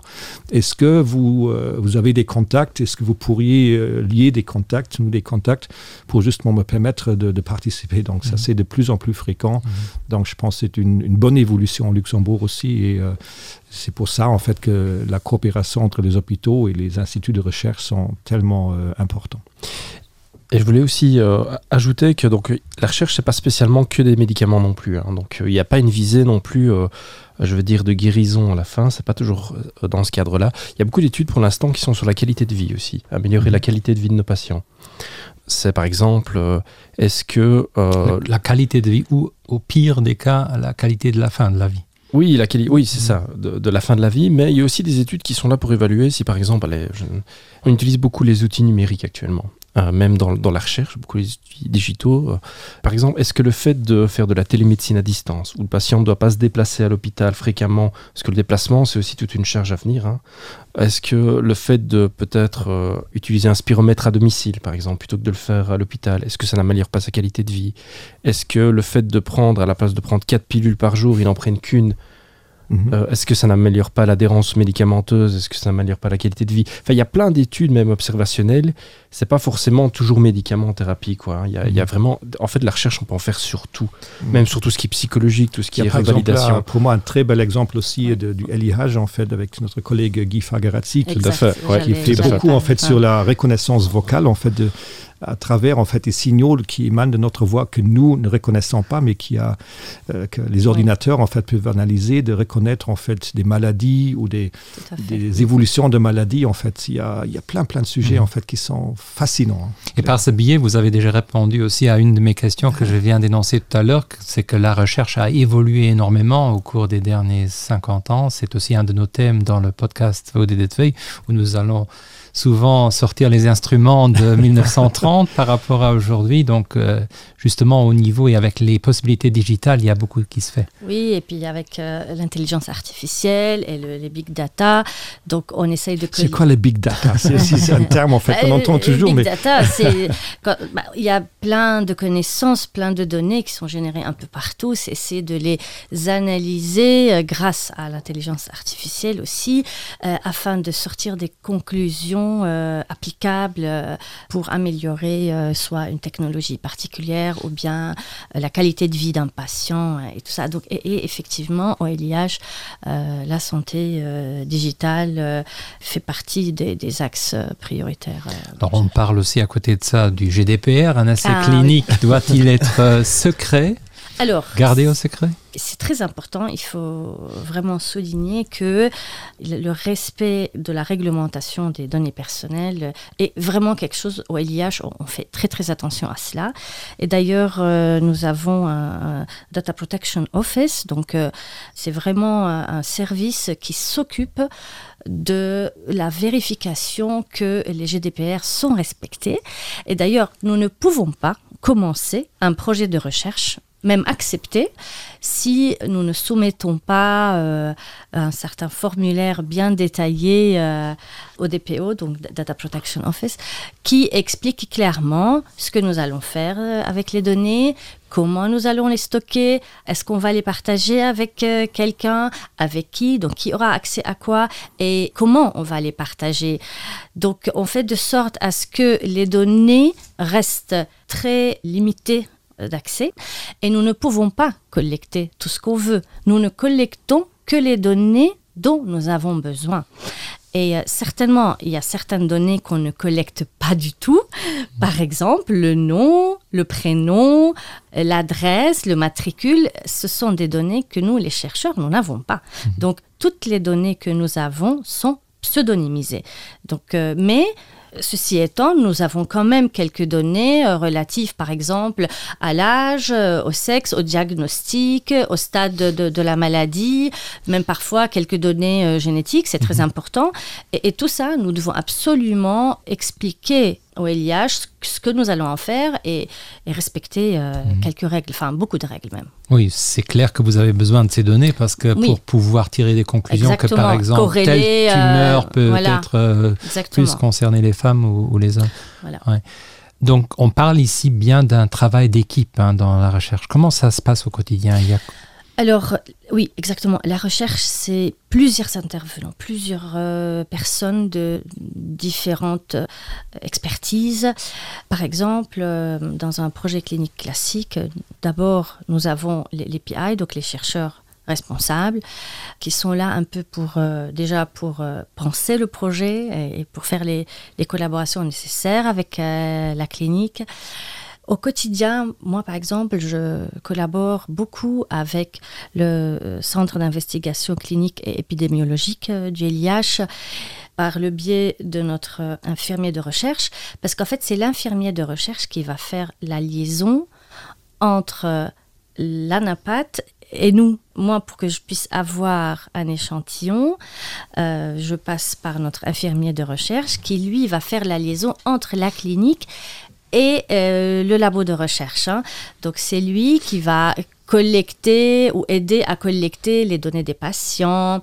est-ce que vous euh, vous avez des contacts est-ce que vous pourriez euh, lier des contacts nous des contacts pour justement me permettre de, de participer donc ça mm -hmm. c'est de plus en plus fréquent mm -hmm. donc je pense c'est une, une bonne évolution en Luxembourg aussi et euh, c'est pour ça en fait que la coopération entre les hôpitaux et les instituts de recherche sont tellement euh, importants. Et je voulais aussi euh, ajouter que donc la recherche c'est pas spécialement que des médicaments non plus hein. donc euh, il n'y a pas une visée non plus euh, je veux dire de guérison à la fin c'est pas toujours euh, dans ce cadre là il y a beaucoup d'études pour l'instant qui sont sur la qualité de vie aussi améliorer mmh. la qualité de vie de nos patients c'est par exemple euh, est-ce que euh, la, la qualité de vie ou au pire des cas la qualité de la fin de la vie Oui, la quali oui c'est mmh. ça de, de la fin de la vie mais il y a aussi des études qui sont là pour évaluer si par exemple allez, je, on utilise beaucoup les outils numériques actuellement euh, même dans, dans la recherche beaucoup les outils digitaux euh. par exemple est-ce que le fait de faire de la télémédecine à distance où le patient ne doit pas se déplacer à l'hôpital fréquemment parce que le déplacement c'est aussi toute une charge à venir hein est-ce que le fait de peut-être euh, utiliser un spiromètre à domicile par exemple plutôt que de le faire à l'hôpital est-ce que ça n'améliore pas sa qualité de vie est-ce que le fait de prendre à la place de prendre quatre pilules par jour il en prenne qu'une Mmh. Euh, est-ce que ça n'améliore pas l'adhérence médicamenteuse est-ce que ça n'améliore pas la qualité de vie enfin il y a plein d'études même observationnelles c'est pas forcément toujours médicament thérapie quoi il y a, mmh. il y a mhm. vraiment en fait la recherche on peut en faire sur tout mmh. même sur tout ce qui est psychologique tout ce qui est revalidation pour moi un très bel exemple aussi de, du LIH en fait avec notre collègue Guy Fagarazzi qui, fait, ouais, qui fait beaucoup en fait sur la reconnaissance vocale en fait de à travers en fait des signaux qui émanent de notre voix que nous ne reconnaissons pas mais qui a euh, que les ordinateurs en fait peuvent analyser de reconnaître en fait des maladies ou des, des évolutions de maladies en fait il y a, il y a plein plein de sujets mmh. en fait qui sont fascinants et par ce billet vous avez déjà répondu aussi à une de mes questions que je viens d'énoncer tout à l'heure c'est que la recherche a évolué énormément au cours des derniers 50 ans c'est aussi un de nos thèmes dans le podcast ODDV où nous allons souvent sortir les instruments de 1930 par rapport à aujourd'hui donc euh, justement au niveau et avec les possibilités digitales il y a beaucoup qui se fait oui et puis avec euh, l'intelligence artificielle et le, les big data donc on essaye de c'est quoi les big data c'est un terme en fait on entend euh, toujours mais data, quand, bah, il y a plein de connaissances plein de données qui sont générées un peu partout c'est de les analyser euh, grâce à l'intelligence artificielle aussi euh, afin de sortir des conclusions euh, applicables euh, pour améliorer euh, soit une technologie particulière ou bien euh, la qualité de vie d'un patient euh, et tout ça donc et, et effectivement au LIH euh, la santé euh, digitale euh, fait partie des, des axes euh, prioritaires euh, Alors, on parle aussi à côté de ça du GDPR un essai ah, clinique oui. doit-il être euh, secret alors gardé au secret c'est très important il faut vraiment souligner que le respect de la réglementation des données personnelles est vraiment quelque chose au LIH on fait très très attention à cela et d'ailleurs euh, nous avons un, un data protection office donc euh, c'est vraiment un, un service qui s'occupe de la vérification que les GDPR sont respectés et d'ailleurs nous ne pouvons pas commencer un projet de recherche même accepté si nous ne soumettons pas euh, un certain formulaire bien détaillé euh, au DPO donc Data Protection Office qui explique clairement ce que nous allons faire euh, avec les données comment nous allons les stocker est-ce qu'on va les partager avec euh, quelqu'un avec qui donc qui aura accès à quoi et comment on va les partager donc on fait de sorte à ce que les données restent très limitées d'accès et nous ne pouvons pas collecter tout ce qu'on veut. Nous ne collectons que les données dont nous avons besoin. Et euh, certainement, il y a certaines données qu'on ne collecte pas du tout. Par exemple, le nom, le prénom, l'adresse, le matricule, ce sont des données que nous, les chercheurs, nous n'avons pas. Mmh. Donc, toutes les données que nous avons sont pseudonymisées. Donc, euh, mais Ceci étant, nous avons quand même quelques données euh, relatives, par exemple, à l'âge, euh, au sexe, au diagnostic, au stade de, de, de la maladie, même parfois quelques données euh, génétiques, c'est très mhm. important. Et, et tout ça, nous devons absolument expliquer. au LIH, ce que nous allons en faire et, et respecter euh, mmh. quelques règles, enfin beaucoup de règles même. Oui, c'est clair que vous avez besoin de ces données parce que oui. pour pouvoir tirer des conclusions Exactement. que par exemple Corréler, telle tumeur euh, peut voilà. être euh, plus concerner les femmes ou, ou les hommes. Voilà. Ouais. Donc on parle ici bien d'un travail d'équipe dans la recherche. Comment ça se passe au quotidien il y a... Alors oui, exactement. La recherche, c'est plusieurs intervenants, plusieurs euh, personnes de différentes euh, expertises. Par exemple, euh, dans un projet clinique classique, d'abord nous avons les, les PI, donc les chercheurs responsables, qui sont là un peu pour euh, déjà pour euh, penser le projet et, et pour faire les, les collaborations nécessaires avec euh, la clinique. Au quotidien, moi par exemple, je collabore beaucoup avec le euh, centre d'investigation clinique et épidémiologique euh, du LIH par le biais de notre euh, infirmier de recherche, parce qu'en fait c'est l'infirmier de recherche qui va faire la liaison entre l'anapathe et nous. Moi, pour que je puisse avoir un échantillon, euh, je passe par notre infirmier de recherche qui lui va faire la liaison entre la clinique et euh, le labo de recherche. Hein. Donc c'est lui qui va collecter ou aider à collecter les données des patients,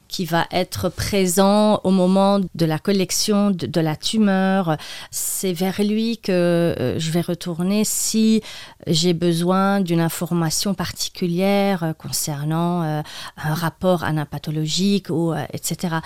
qui va être présent au moment de la collection de, de la tumeur. C'est vers lui que euh, je vais retourner si j'ai besoin d'une information particulière euh, concernant euh, un rapport anapathologique ou etc.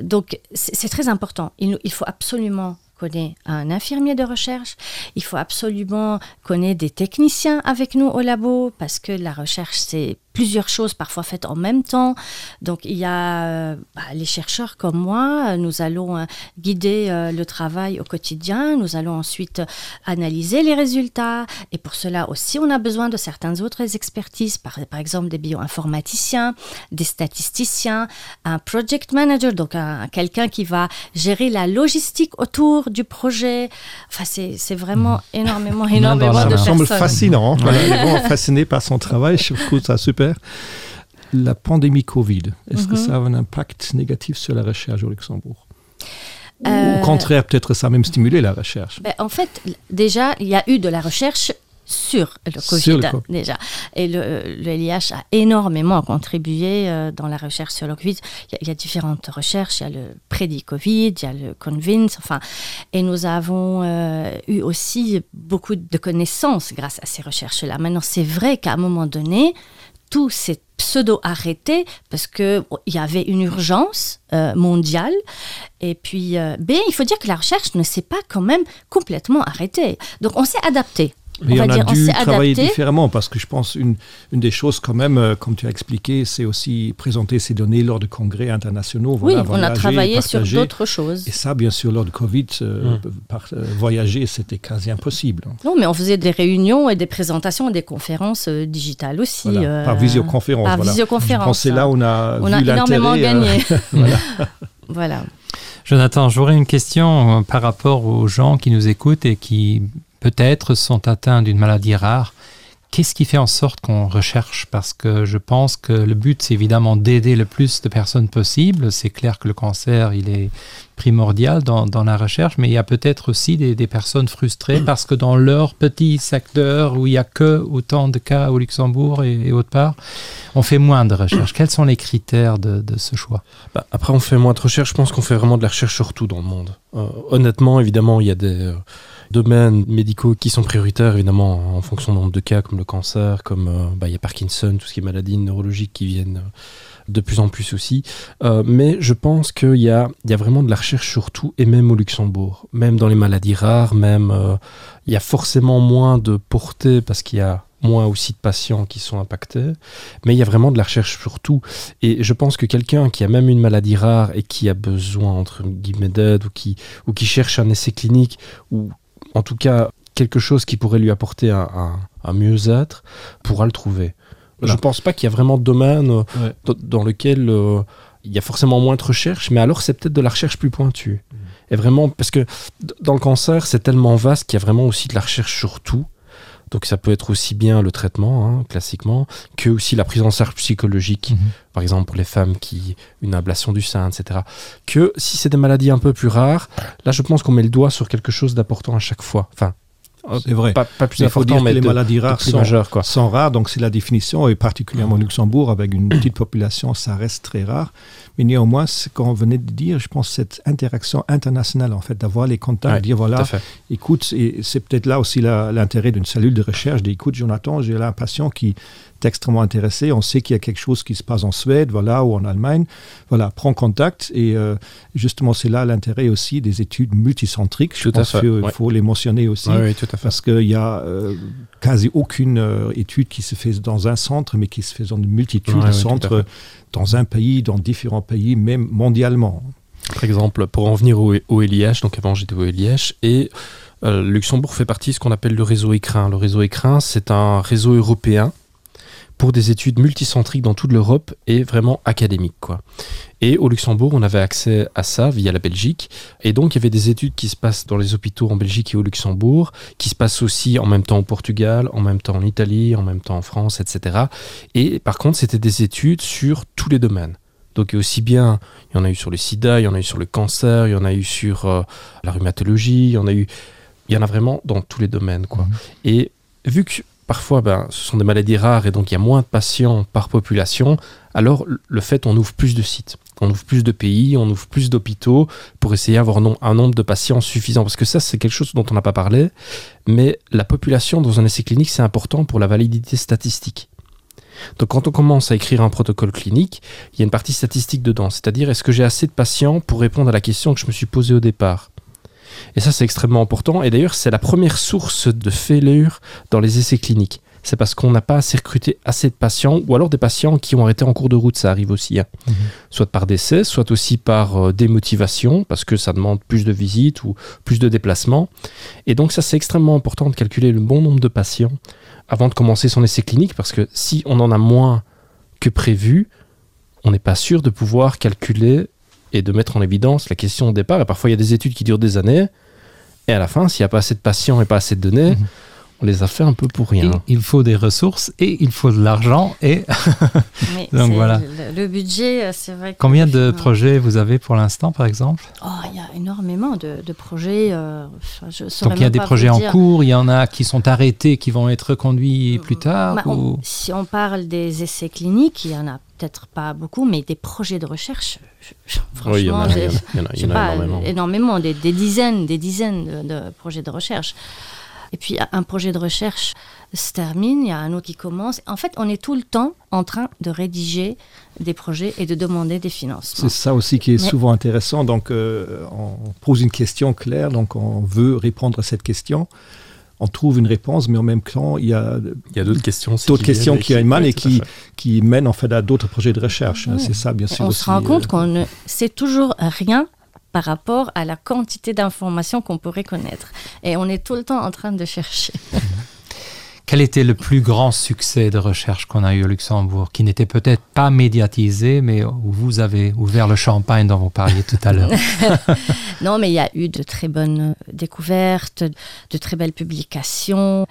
Donc c'est très important. Il, il faut absolument connaît un infirmier de recherche, il faut absolument connaître des techniciens avec nous au labo parce que la recherche c'est plusieurs choses parfois faites en même temps. Donc il y a euh, bah, les chercheurs comme moi, nous allons euh, guider euh, le travail au quotidien, nous allons ensuite analyser les résultats et pour cela aussi on a besoin de certaines autres expertises, par, par exemple des bioinformaticiens, des statisticiens, un project manager, donc un, quelqu'un qui va gérer la logistique autour du projet. Enfin c'est vraiment mmh. énormément énormément de semble fascinant voilà, vraiment fasciné par son travail, je trouve ça super. La pandémie Covid, est-ce mm -hmm. que mhm. ça a un impact négatif sur la recherche au Luxembourg euh, Au contraire, peut-être ça a même stimulé la recherche. Ben, en fait, déjà, il y a eu de la recherche sur le COVID, sur le COVID. déjà. Et le, le LIH a énormément contribué euh, dans la recherche sur le COVID. Il y a, il y a différentes recherches, il y a le prédit-Covid, il y a le Convince, enfin, et nous avons euh, eu aussi beaucoup de connaissances grâce à ces recherches-là. Maintenant, c'est vrai qu'à un moment donné, tout s'est pseudo-arrêté parce qu'il bon, y avait une urgence euh, mondiale. Et puis, euh, B, il faut dire que la recherche ne s'est pas quand même complètement arrêtée. Donc, on s'est adapté. Mais on, on a dire, dû travailler différemment parce que je pense une, une des choses quand même, euh, comme tu as expliqué, c'est aussi présenter ces données lors de congrès internationaux. Voilà, oui, on a travaillé sur d'autres choses. Et ça, bien sûr, lors de Covid, euh, mmh. par, euh, voyager, c'était quasi impossible. Non, mais on faisait des réunions et des présentations et des conférences euh, digitales aussi. Voilà, euh, par visioconférence. Par voilà. visioconférence. C'est là on a, on vu a énormément gagné. Euh, voilà. voilà. Jonathan, j'aurais une question euh, par rapport aux gens qui nous écoutent et qui peut-être sont atteints d'une maladie rare. Qu'est-ce qui fait en sorte qu'on recherche Parce que je pense que le but, c'est évidemment d'aider le plus de personnes possible. C'est clair que le cancer, il est primordial dans, dans la recherche, mais il y a peut-être aussi des, des personnes frustrées parce que dans leur petit secteur où il n'y a que autant de cas au Luxembourg et, et autre part, on fait moins de recherches. Quels sont les critères de, de ce choix bah, Après, on fait moins de recherches. Je pense qu'on fait vraiment de la recherche surtout dans le monde. Euh, honnêtement, évidemment, il y a des... Euh, domaines médicaux qui sont prioritaires évidemment en fonction du nombre de cas comme le cancer comme euh, bah, il y a Parkinson tout ce qui est maladies neurologiques qui viennent euh, de plus en plus aussi euh, mais je pense qu'il y a il y a vraiment de la recherche surtout et même au Luxembourg même dans les maladies rares même euh, il y a forcément moins de portée parce qu'il y a moins aussi de patients qui sont impactés mais il y a vraiment de la recherche surtout et je pense que quelqu'un qui a même une maladie rare et qui a besoin entre guillemets d'aide ou qui ou qui cherche un essai clinique ou en tout cas quelque chose qui pourrait lui apporter un, un, un mieux-être pourra le trouver. Voilà. Je pense pas qu'il y a vraiment de domaine euh, ouais. dans lequel euh, il y a forcément moins de recherche, mais alors c'est peut-être de la recherche plus pointue. Mmh. Et vraiment parce que dans le cancer, c'est tellement vaste qu'il y a vraiment aussi de la recherche sur tout. Donc ça peut être aussi bien le traitement hein, classiquement que aussi la prise en charge psychologique, mm -hmm. par exemple pour les femmes qui une ablation du sein, etc. Que si c'est des maladies un peu plus rares, là je pense qu'on met le doigt sur quelque chose d'important à chaque fois. Enfin, c'est vrai pas, pas plus il faut important dire mais que les de, maladies rares de plus sont, majeures, quoi. sont rares donc c'est la définition et particulièrement Luxembourg avec une petite population ça reste très rare mais néanmoins ce qu'on venait de dire je pense cette interaction internationale en fait d'avoir les contacts ouais, dire voilà écoute et c'est peut-être là aussi l'intérêt d'une cellule de recherche d'écoute Jonathan j'ai là un patient qui est extrêmement intéressé on sait qu'il y a quelque chose qui se passe en Suède voilà ou en Allemagne voilà prend contact et euh, justement c'est là l'intérêt aussi des études multicentriques je tout pense fait, qu'il ouais. faut les mentionner aussi ouais, ouais, tout à fait. parce qu'il y a euh, quasi aucune euh, étude qui se fait dans un centre mais qui se fait dans une multitude ouais, de ouais, centres dans un pays dans différents pays même mondialement par exemple pour en venir au, au LIH donc avant j'étais au LIH et euh, Luxembourg fait partie de ce qu'on appelle le réseau écrin le réseau écrin c'est un réseau européen pour des études multicentriques dans toute l'Europe et vraiment académique quoi. Et au Luxembourg, on avait accès à ça via la Belgique et donc il y avait des études qui se passent dans les hôpitaux en Belgique et au Luxembourg, qui se passent aussi en même temps au Portugal, en même temps en Italie, en même temps en France, etc. Et par contre, c'était des études sur tous les domaines. Donc aussi bien il y en a eu sur le sida, il y en a eu sur le cancer, il y en a eu sur euh, la rhumatologie, il y en a eu il y en a vraiment dans tous les domaines quoi. Mmh. Et vu que parfois ben, ce sont des maladies rares et donc il y a moins de patients par population, alors le fait on ouvre plus de sites, on ouvre plus de pays, on ouvre plus d'hôpitaux pour essayer d'avoir non, un nombre de patients suffisant parce que ça c'est quelque chose dont on n'a pas parlé, mais la population dans un essai clinique c'est important pour la validité statistique. Donc quand on commence à écrire un protocole clinique, il y a une partie statistique dedans, c'est-à-dire est-ce que j'ai assez de patients pour répondre à la question que je me suis posée au départ. Et ça c'est extrêmement important et d'ailleurs c'est la première source de fêlure dans les essais cliniques. C'est parce qu'on n'a pas assez recruté assez de patients ou alors des patients qui ont arrêté en cours de route, ça arrive aussi hein. mmh. soit par décès, soit aussi par euh, démotivation parce que ça demande plus de visites ou plus de déplacements. Et donc ça c'est extrêmement important de calculer le bon nombre de patients avant de commencer son essai clinique parce que si on en a moins que prévu, on n'est pas sûr de pouvoir calculer et de mettre en évidence la question au départ et parfois il y a des études qui durent des années et à la fin s'il n'y a pas assez de patients et pas assez de données, mmh on les a fait un peu pour rien. Et il faut des ressources et il faut de l'argent et donc voilà le, le budget c'est vrai combien de projets vous avez pour l'instant par exemple oh, il y a énormément de, de projets euh, enfin, je donc il y a des projets en cours il y en a qui sont arrêtés qui vont être reconduits plus tard bah, ou... on, si on parle des essais cliniques il y en a peut-être pas beaucoup mais des projets de recherche je, je, oui, il y en a, il y en a, il y en a pas, énormément. énormément des, des dizaines des dizaines de, de projets de recherche et puis un projet de recherche se termine il y a un autre qui commence en fait on est tout le temps en train de rédiger des projets et de demander des financements c'est ça aussi qui est Mais... souvent intéressant donc euh, on pose une question claire donc on veut répondre à cette question on trouve une réponse mais en même temps il y a il y a d'autres questions d'autres questions qui émanent et qui qui mènent en fait à d'autres projets de recherche oui. c'est ça bien sûr on aussi, se rend compte euh... qu'on ne sait toujours rien par rapport à la quantité d'informations qu'on pourrait connaître et on est tout le temps en train de chercher Quel était le plus grand succès de recherche qu'on a eu au Luxembourg, qui n'était peut-être pas médiatisé, mais où vous avez ouvert le champagne dont vous parliez tout à l'heure Non, mais il y a eu de très bonnes découvertes, de très belles publications.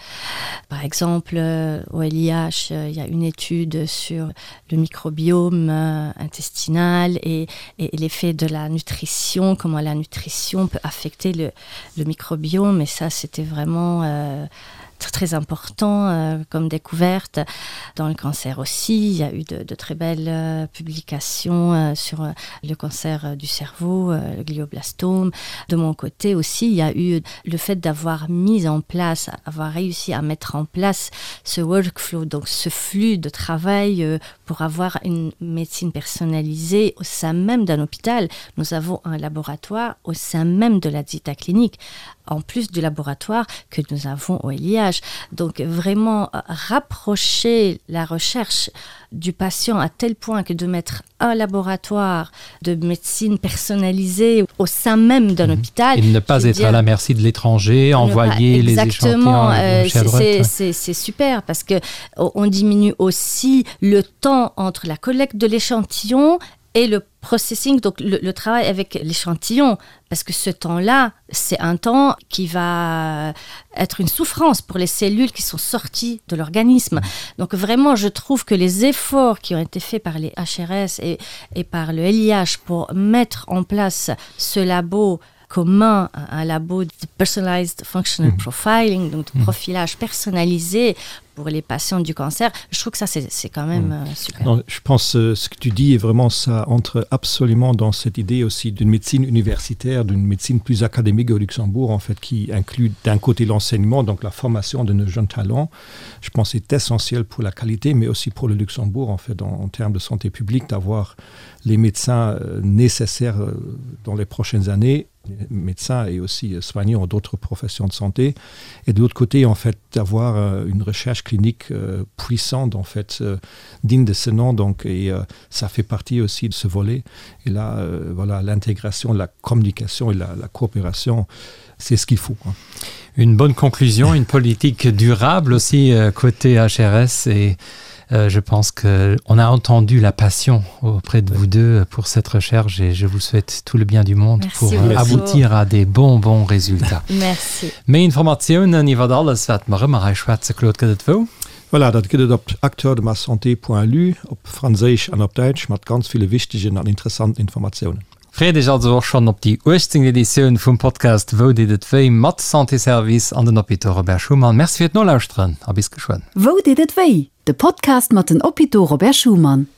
Par exemple, euh, au LIH, euh, il y a une étude sur le microbiome euh, intestinal et, et l'effet de la nutrition, comment la nutrition peut affecter le, le microbiome. Et ça, c'était vraiment... Euh, très, très important euh, comme découverte. Dans le cancer aussi, il y a eu de, de très belles euh, publications euh, sur euh, le cancer euh, du cerveau, euh, le glioblastome. De mon côté aussi, il y a eu le fait d'avoir mis en place, avoir réussi à mettre en place ce workflow, donc ce flux de travail euh, pour avoir une médecine personnalisée au sein même d'un hôpital. Nous avons un laboratoire au sein même de la Zita clinique en plus du laboratoire que nous avons au LIH. Donc vraiment euh, rapprocher la recherche du patient à tel point que de mettre un laboratoire de médecine personnalisée au sein même d'un mmh. hôpital et ne pas être dire, à la merci de l'étranger, envoyer pas, les exactement euh, c'est super parce que on diminue aussi le temps entre la collecte de l'échantillon et. Et le processing, donc le, le travail avec l'échantillon, parce que ce temps-là, c'est un temps qui va être une souffrance pour les cellules qui sont sorties de l'organisme. Donc vraiment, je trouve que les efforts qui ont été faits par les HRS et, et par le LIH pour mettre en place ce labo commun, un labo de personalized functional mmh. profiling, donc de mmh. profilage personnalisé pour les patients du cancer, je trouve que ça c'est quand même mmh. euh, super. Non, je pense euh, ce que tu dis est vraiment ça entre absolument dans cette idée aussi d'une médecine universitaire, d'une médecine plus académique au Luxembourg en fait qui inclut d'un côté l'enseignement, donc la formation de nos jeunes talents. Je pense c'est essentiel pour la qualité mais aussi pour le Luxembourg en fait en, en termes de santé publique d'avoir les médecins euh, nécessaires euh, dans les prochaines années médecins et aussi euh, soignants d'autres professions de santé et de l'autre côté en fait d'avoir euh, une recherche clinique euh, puissante en fait digne de ce nom donc et ça fait partie aussi de ce volet et là voilà l'intégration la communication et la, la coopération c'est ce qu'il faut quoi. Une bonne conclusion une politique durable aussi côté HRS et Euh, je pense que on a entendu la passion auprès de vous deux pour cette recherche et je vous souhaite tout le bien du monde Merci pour beaucoup. aboutir à des bons bons résultats. Merci. Méi Informatiounen iwwer alles wat mer ëmmer hei schwätze, Claude, gëtt et wou? Voilà, dat gëtt et op acteurdemassanté.lu, op Franséisch an op Däitsch, mat ganz ville wichtegen an interessanten Informatiounen. Freet Iech also och schonn op déi 18. Editioun vum Podcast Wou deet et wéi? mat Santé Service an den Hôpitaux Robert Schuman. Merci fir d'Nolauschteren a bis geschwënn. Wou deet et wéi? De Podcast mat den Hôpitaux Robert Schuman.